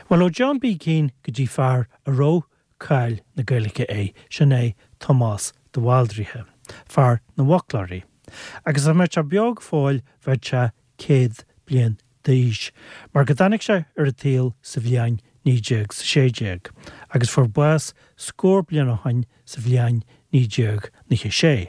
Bhuel, ó John B. Keane go dtí fear a raibh cáil na Gaeilge air, sin é Tomás de Bhaldraithe, fear na bhfoclóirí. Agus dá mbeadh sé beo go fóill bheadh sé 100 bliain d'aois, mar go dtáinig sé ar an tsaol sa bhliain 1916, agus fuair bás scór bliain ó shoin sa bhliain 1996.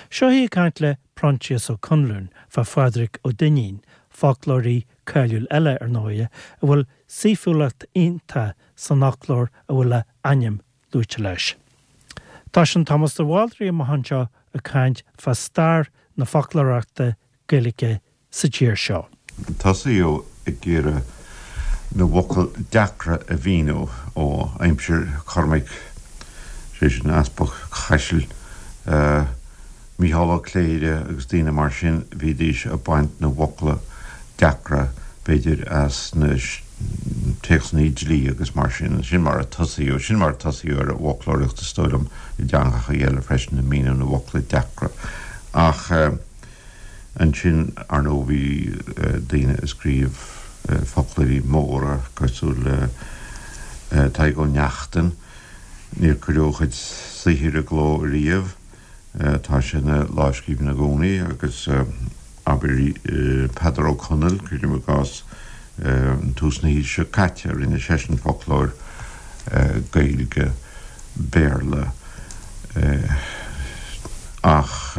Seo é ag caint le Proinsias Ó Conluain fá Phádraig Ó Duinnín, foclóirí cáiliúil eile, ar ndóighe, a bhfuil saoithiúlacht iontach san fhoclóir a bhfuil a ainm luaite leis. Toisíonn Tomás de Bhaldraithe amach anseo ag caint fá stair na foclóireachta Gaeilge sa tír seo. Tosaíodh ag iarraidh na bhfocal deacra a mhíniú ó aimsir Chormaic, sé sin Easpag Chaisil, Mícheál Ó Cléire agus daoine mar sin, bhídís ag baint na bhfocla deacra, b'fhéidir, as na téacsanna dlí agus mar sin. Sin mar a tosaíodh, sin mar a tosaíodh ar an bhfoclóireacht is dóigh liom i dteangacha eile freisin, ag míniú na bhfocla deacra. Ach. Ansin, ar ndóigh, bhí daoine ag scríobh foclóirí móra cosúil le Tadhg Ó Neachtain. Níor cuireadh a chuid saothair i gcló riamh. Tá sé ina lámhscríbhinn i gcónaí agus abair Peadar Ó Conaill, cuirim i gcás, tús na haoise seo caite, rinne seisean foclóir Gaeilge Béarla ach.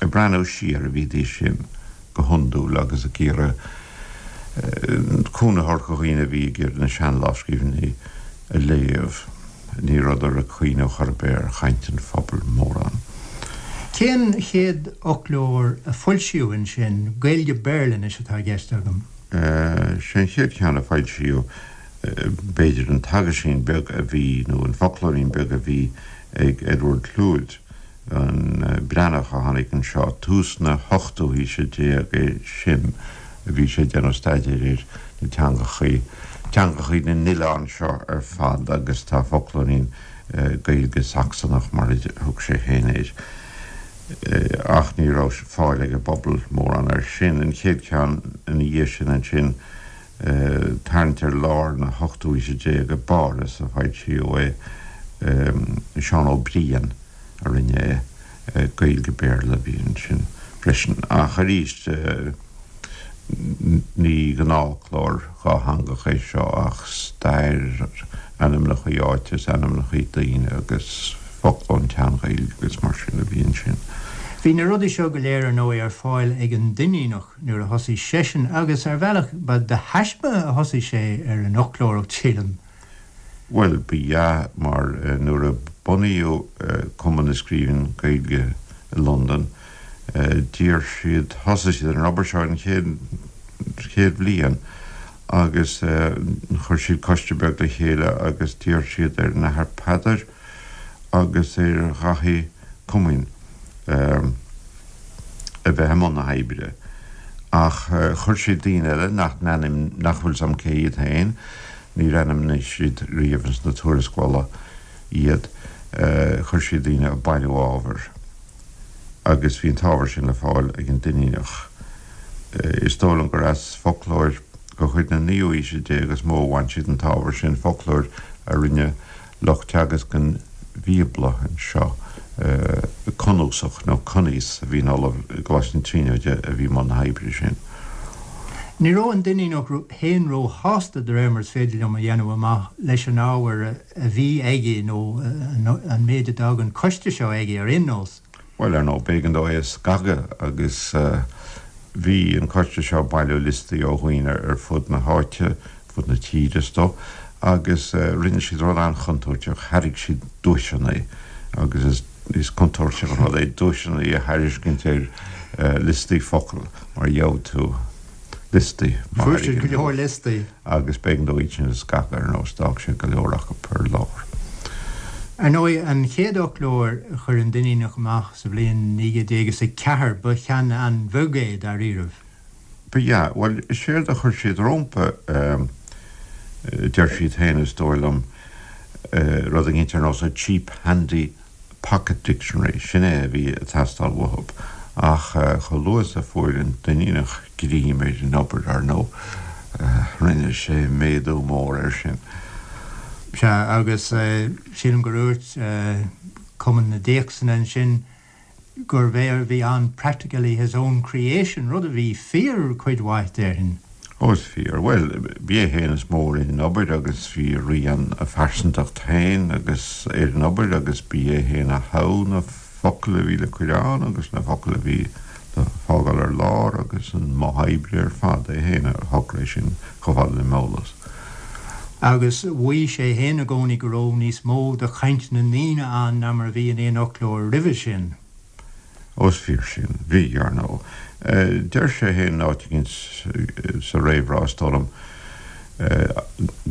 Ag breathnú siar a bhídís sin go hiondúil agus ag iarraidh cúnamh a thabhairt do dhaoine a bhí ag iarraidh na sean-lámhscríbhinní a léamh. Ní rabhadar ag cuimhneamh chor ar bith ar chaint an phobail mórán. Cén chéad fhoclóir a foilsíodh ansin? Gaeilge-Béarla anois atá i gceist agam. Sé an chéad cheann a foilsíodh, b'fhéidir, an t-aguisín beag a bhí, nó an foclóirín beag a bhí ag Edward Lhuyd. an Breathnach a tháinig anseo, tús na hochtú haoise déag é sin, a bhí sé ag déanamh staidéir ar na teangachaí, teangachaí na n-oileán seo ar fad agus tá foclóirín Gaeilge-Sacsanach mar a thug sé féin air. Ach ní raibh fáil ag an bpobal mórán air sin. An chéad cheann ina dhiaidh sin ansin, tarraingt ar lár na hochtú haoise déag i bPáras a foilsíodh é, Seán Ó Briain a rinne é, Gaeilge-Béarla a bhí ansin freisin. Ach arís, ní gnáthfhoclóir dhátheangach é seo ach stair, ainmneacha áite is ainmneacha daoine agus focla ón tSean-Ghaeilge agus mar sin a bhí ansin. Bhí na rudaí seo go léir ar ndóigh ar fáil ag an Duinníneach. nuair a thosaigh seisean, agus ar bhealach ba de thaisme a thosaigh sé ar an fhoclóireacht, sílim. Bhuel, ba ea, mar nuair a bunaíodh Cumann na Scríbhneoirí Gaeilge i Londain, d'iarr siad, thosaigh siad ar an obair seo an chéad, chéad bhliain agus chuir siad coiste beag le chéile agus d'iarr siad ar an Athair Peadar agus ar Dhaithí Coimín, a bheith i mbun na hoibre. Ach chuir siad daoine eile nach n-ainm, nach bhfuil 's a'm cé hiad féin, níor ainmnigh siad riamh ins na tuarascálacha iad, chuir siad daoine ag bailiú ábhair agus bhí an t-ábhar sin le fáil ag an Duinníneach. Is dóigh liom gur as foclóir de chuid na naoú haoise déag is mó a bhain siad an t-ábhar sin, foclóir a rinne lucht teagasc an Bhíobla anseo, cnuasach nó Cuníos a bhí ina ollamh i gColáiste na Tríonóide a bhí i mbun na hoibre sin. Ní raibh an Duinníneach féin róshásta, de réir mar is féidir liom a dhéanamh amach, leis an ábhar a bhí aige, nó an méid a d'fhág an coiste seo aige ar aon nós. Bhuel, ar ndóigh, b'éigean dó é a scagadh agus bhí an coiste seo ag bailiú liostaí ó dhaoine ar fud na háite, fud na tíre is dóigh, agus rinne siad rud an-chontúirteach, thairg siad duaiseanna agus is contúirteach an rud é duaiseanna a thairiscint ar liostaí focal mar gheobhaidh tú liostaí. Fuair siad go leor liostaí. Agus b'éigean dó iad sin a scagadh ar nós, d'fhág sé go leor acu ar lár. Ar ndóigh, an chéad fhoclóir a chuir an Duinníneach amach sa bhliain 1904, ba cheann an-bheag é, dáiríribh. Ba ea. Bhuel, is éard a chuir siad rómpa, deir siad féin, is dóigh liom, rud éicint ar nós a cheap handy pocket dictionary, sin é a bhí ag teastáil uathu. Ach chomh luath is a fuair an Duinníneach greim ar an obair, ar ndóigh. Rinne sé méadú mór air sin. Sea, agus sílim gur dhúirt Cumann na dTéacsanna ansin gurbh é a bhí ann practically his own creation, rud a bhí fíor cuid mhaith, déarfainn. Ó, is fíor. Bhuel, b'é féin is mó a rinne an obair agus bhí a rian, a phearsantacht féin agus ar an obair agus b'é féin a thogh na focail a bhí le cur ann agus na focail a bhí le fágáil ar lár agus an modh oibre ar fad, é féin a shocraigh sin chomh fada le m'eolas. Agus mhaígh sé féin i gcónaí go raibh níos mó de chaint na ndaoine ann ná mar a bhí in aon fhoclóir roimhe sin. Ó is fíor sin. Bhí, ar ndóigh. Deir sé féin in áit éicint sa réamhrá, is dóigh liom,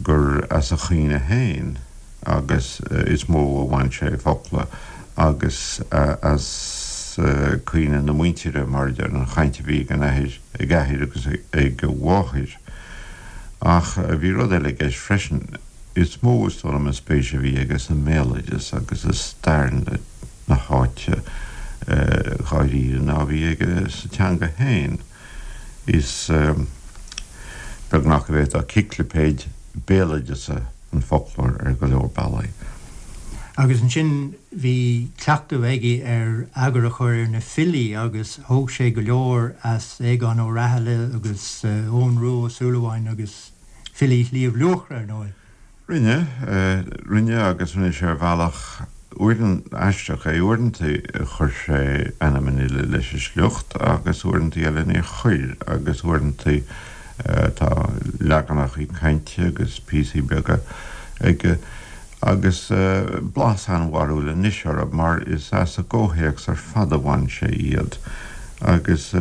gur as a chuimhne féin agus is mó a bhain sé focla agus as cuimhne na muintire, mar a deir, an chaint a bhí ag an athair, ag a athair agus ag a mháthair. Ach bhí rud eile i gceist freisin. Is mó, is dóigh liom, an spéis a bhí aige sa mbéaloideas agus i stair na háite dháiríre ná a bhí aige sa teanga féin. Is beagnach go bhféadfá ciclipéid béaloideasa an foclóir ar go leor bealaí. Agus ansin bhí cleachtadh aige ar eagar a chur ar na filí agus thóg sé go leor as Aogán Ó Rathaille agus Eoghan Rua Ó Súilleabháin agus filí Shliabh Luachra, ar ndóigh. Rinne, rinne agus rinne sé ar bhealach uaireanta aisteach é. Uaireanta chuir sé ainm an fhile leis an sliocht agus uaireanta eile níor chuir agus uaireanta tá leaganacha cainte agus píosaí beaga aige agus blas an-bharrúil anois orthu mar is as a gcomhthéacs ar fad a bhain sé iad agus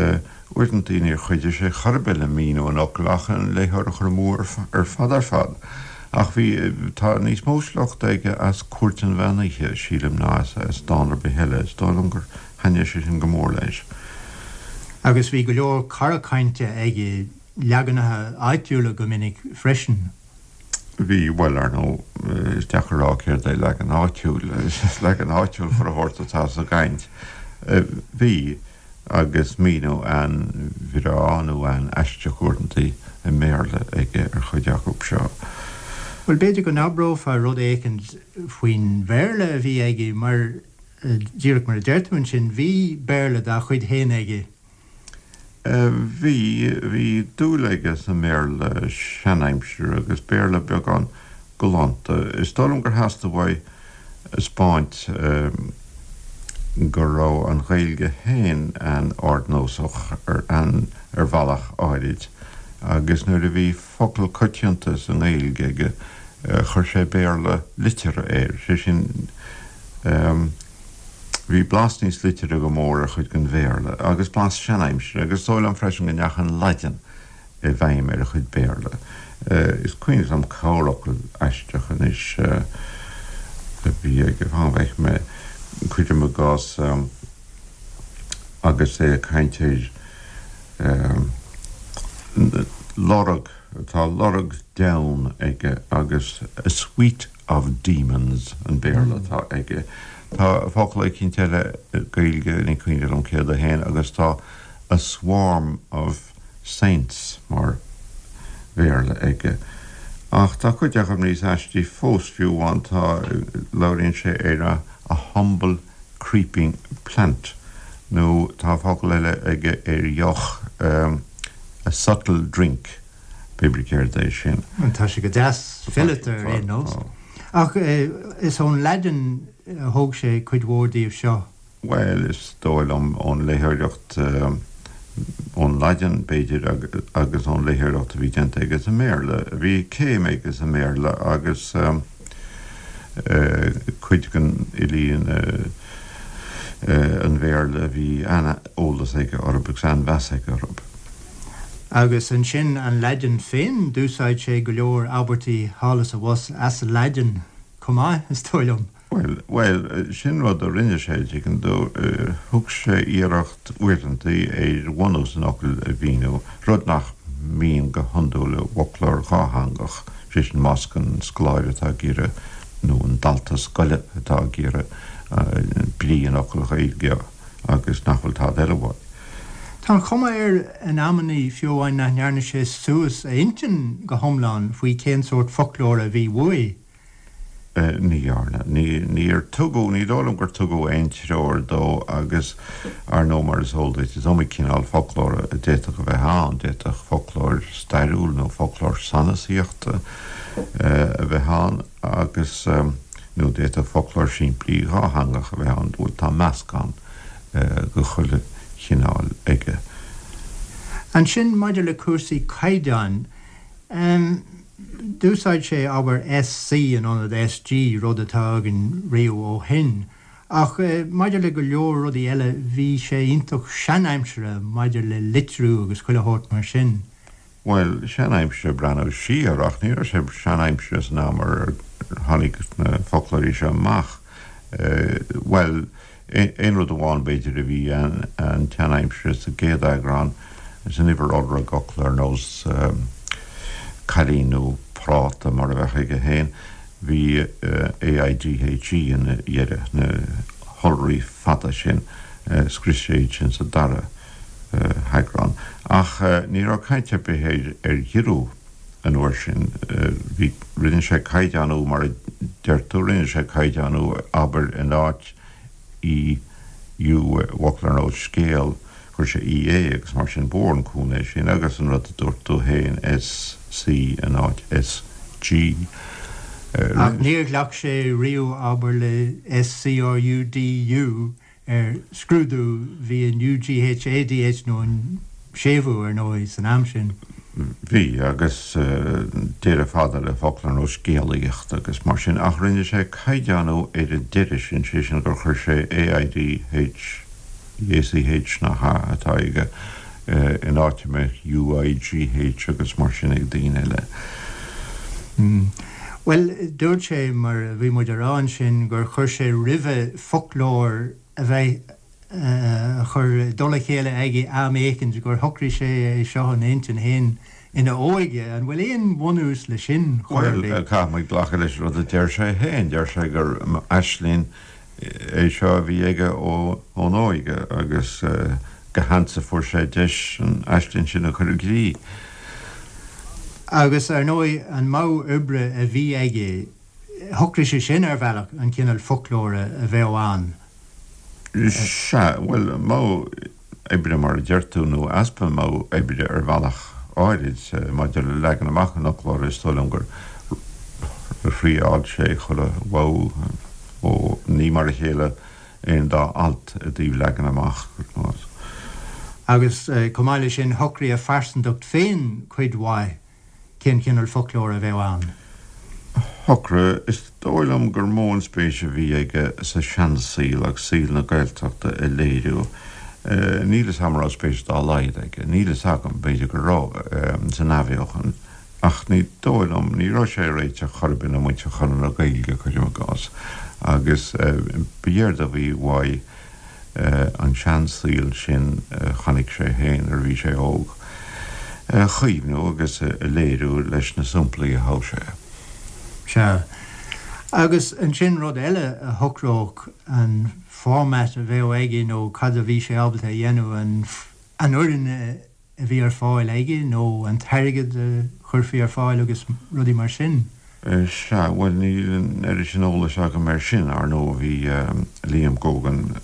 Uaireanta níor chuidigh sé chor ar bith le míniú an fhocail ach an léitheoir a chur amú ar fad ar fad. Ach bhí, tá níos mó sliochta aige as Cúirt an Mheán Oíche, sílim, ná as dán ar bith eile. Is dóigh liom gur thaitnigh sé sin go mór leis. Agus bhí go leor cara cainte aige, leaganacha áitiúla go minic freisin. Bhí, bhuel, ar ndóigh, is deacair a rá céard é leagan áitiúil. Is leagan áitiúil chuile shórt atá sa gcaint. Bhí. agus míniú an-bhreá nó an-aisteach uaireanta i mBéarla aige ar chuid acu seo. Bhuel, b'fhéidir go n-abrófá rud éicint faoin Bhéarla a bhí aige, mar, díreach mar a deir tú ansin, bhí Béarla dá chuid féin aige. Bhí, bhí dúil aige sa mBéarla seanaimsire agus Béarla beagán galánta. Is dóigh liom gur theastaigh uaidh a 'speáint go raibh an Ghaeilge féin an-ardnósach ar ar bhealach áirid agus nuair a bhí focal coitianta sa nGaeilge aige chuir sé Béarla liteartha air, sé sin bhí blas níos liteartha go mór ar chuid den Bhéarla agus blas seanaimsire agus is dóigh liom freisin go ndeachaigh an Laidin i bhfeidhm ar a chuid Béarla. Is cuimhin liom corrfhocal aisteach anois a bhí aige, fan go bhfeicfidh mé, cuirim i gcás, agus é ag caint ar lorg, tá lorg deamhan aige agus a suite of demons an Béarla atá aige. Tá focal eicínt eile Gaeilge, ní cuimhin liom céard é féin, agus tá a swarm of saints mar Bhéarla aige. Ach tá cuid acu níos aistí fós, fiú amháin tá, labhraíonn sé ar a a humble creeping plant nó tá focal eile aige ar dheoch, a subtle drink, pé brí céard é sin. Tá sé go deas fileata ar aon nós. Ach is ón Laidin a thóg sé cuid mhór díobh seo. Bhuel, is dóigh liom ón léitheoireacht, ón Laidin, b'fhéidir, agus ón léitheoireacht a bhí déanta aige sa mBéarla. Bhí céim aige sa mBéarla agus cuid den fhilí an Bhéarla a bhí an-eolas aige orthu agus an-mheas aige orthu. Agus ansin an Laidin féin, d'úsáid sé go leor abairtí thall is abhus as an Laidin chomh maith, is dóigh liom. Bhuel, bhuel, sin rud a rinne sé, tuigeann tú. Thug sé iarracht uaireantaí ar bhunús an fhocail a mhíniú, rud nach mbíonn go hiondúil i bhfoclóir dhátheangach, sé sin más an scoláire atá ag iarraidh, nó an dalta scoile atá ag iarraidh brí an fhocail Ghaeilge agus nach bhfuil tada eile uaidh. Tá an chuma air in amannaí, fiú amháin, nach ndearna sé suas a intinn go hiomlán faoi cén sórt foclóra a bhí uaidh. Ní dhearna. Níor tugadh, ní dóigh liom gur tugadh aon treoir dó agus, ar ndóigh, mar is eol duit, is iomaí cineál foclóra a d'fhéadfadh a bheith ann. D'fhéadfadh foclóir stairiúil nó foclóir sanasaíochta a bheith ann agus, nó d'fhéadfadh foclóir simplí dhátheangach a bheith ann. Bhuel, tá meascán de chuile chineál aige. Ansin, maidir le cúrsaí caighdeáin, D'úsáid sé, abair, SC in ionad SG, rud atá againn riamh ó shin. Ach maidir le go leor rudaí eile, bhí sé iontach seanaimseartha maidir le litriú agus chuile shórt mar sin. Bhuel, seanaimseartha ag breathnú siar, ach ní raibh sé seanaimseartha san am ar tháinig na foclóirí seo amach. Bhuel, Aon rud amháin, b'fhéidir, a bhí an-tseanaimseartha sa gcéad eagrán, san uimhir iolra i bhfocla ar nós cailín nó práta mar a bheadh aige féin, bhí AIGHE ina dheireadh, na hiolraí fada sin, scrios sé iad sin sa dara heagrán. Ach ní raibh caint ar bith ar ghiorrú an uair sin. Bhí, rinne sé caighdeánú mar a deir tú, rinne sé caighdeánú, abair, in áit E, U i bhfocal ar nós scéal, chuir sé E A agus mar sin, ba mhór an cúnamh é sin agus an rud a dúirt tú féin, S C in áit S G. Ach níor ghlac sé riamh, abair, le S C R U D U ar scrúdú, bhí an UGH ADH nó an séimhiú, ar ndóigh, san am sin. Bhí, agus deireadh fada le focla ar nós scéalaíocht agus mar sin, ach rinne sé caighdeánú ar an deireadh sin, sé sin gur chuir sé AIDH, ACH nach ea, atá aige, in áit a mbeadh UIGH agus mar sin ag daoine eile. Bhuel, dúirt sé, mar a bhí muid a rá ansin, gur chuir sé roimhe foclóir a bheith a chur i dtoll a chéile aige am éicint, gur shocraigh sé é seo ina intinn féin ina óige. An bhfuil aon bhunús le sin chor ar bith? Bhuel, caithfidh muid glacadh leis an rud a deir sé féin. Deir sé gur aisling é seo a bhí aige ón óige agus go hansa fuair sé deis an aisling sin a chur i gcrích. Agus, ar ndóigh, an modh oibre a bhí aige, shocraigh sé sin, ar bhealach, an cineál foclóra a bheadh ann. Sea, bhuel, modh oibre mar a deir tú, nó easpa modh oibre ar bhealach áirid, maidir le leagan amach an fhoclóra, is dóigh liom gur thriáil sé chuile mhodh, ó ní mar a chéile aon dá alt i dtaobh leagan amach. Agus chomh maith leis sin, shocraigh a phearsantacht féin cuid mhaith cén cineál foclóra a bheadh ann. Shocraigh. Is dóigh liom gur mó an spéis a bhí aige sa seansaol agus saol na Gaeltachta a léiriú. Níl fhios agam an raibh spéis dá laghad aige, níl fhios agam, b'fhéidir go raibh, san athbheochan. Ach ní dóigh liom, ní raibh sé ag réiteach chor ar bith le muintir Chonradh na Gaeilge, cuirim i gcás, agus b'éard a bhí uaidh an seansaol sin a chonaic sé féin nuair a bhí sé óg, a chaomhnú agus a léiriú leis na samplaí a thogh sé. Sea. Agus ansin rud eile a shocródh an format a bheadh aige nó cad a bhí sé ábalta a dhéanamh, an fhoireann a a bhí ar fáil aige nó an t-airgead a chuirfí ar fáil agus rudaí mar sin. Sea, bhuel, níl an oiread sin eolais agam air sin. Ar ndóigh, bhí Liam Gógan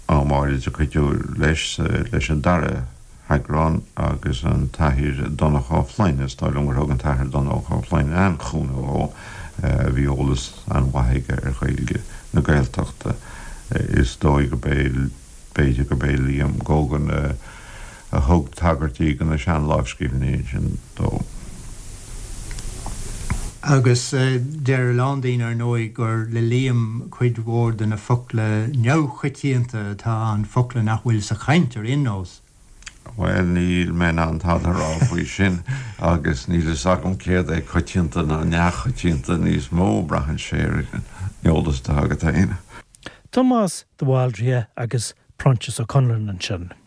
am áirid ag cuidiú leis, leis an dara heagrán agus an tAthair Donncha Ó Floinn, is dóigh liom gur thug an tAthair Donncha Ó Floinn an-chúnamh dhó, bhí eolas an-mhaith aige ar Ghaeilge na Gaeltachta. Is dóigh gurb é. B'fhéidir gurb é Liam Gógan a thug tagairtí do na seanlámhscríbhinní sin dó. Agus deir a lán daoine, ar ndóigh, gur le Liam cuid mhór de na focla neamhchoitianta atá ann, focla nach bhfuil sa chaint ar aon nós. Bhuel, níl mé in ann tada a rá faoi sin agus níl fhios agam céard é coitianta ná neamhchoitianta níos mó, braitheann sé ar an eolas atá agat féin. Tomás de Bhaldraithe agus Proinsias Ó Conluain ansin.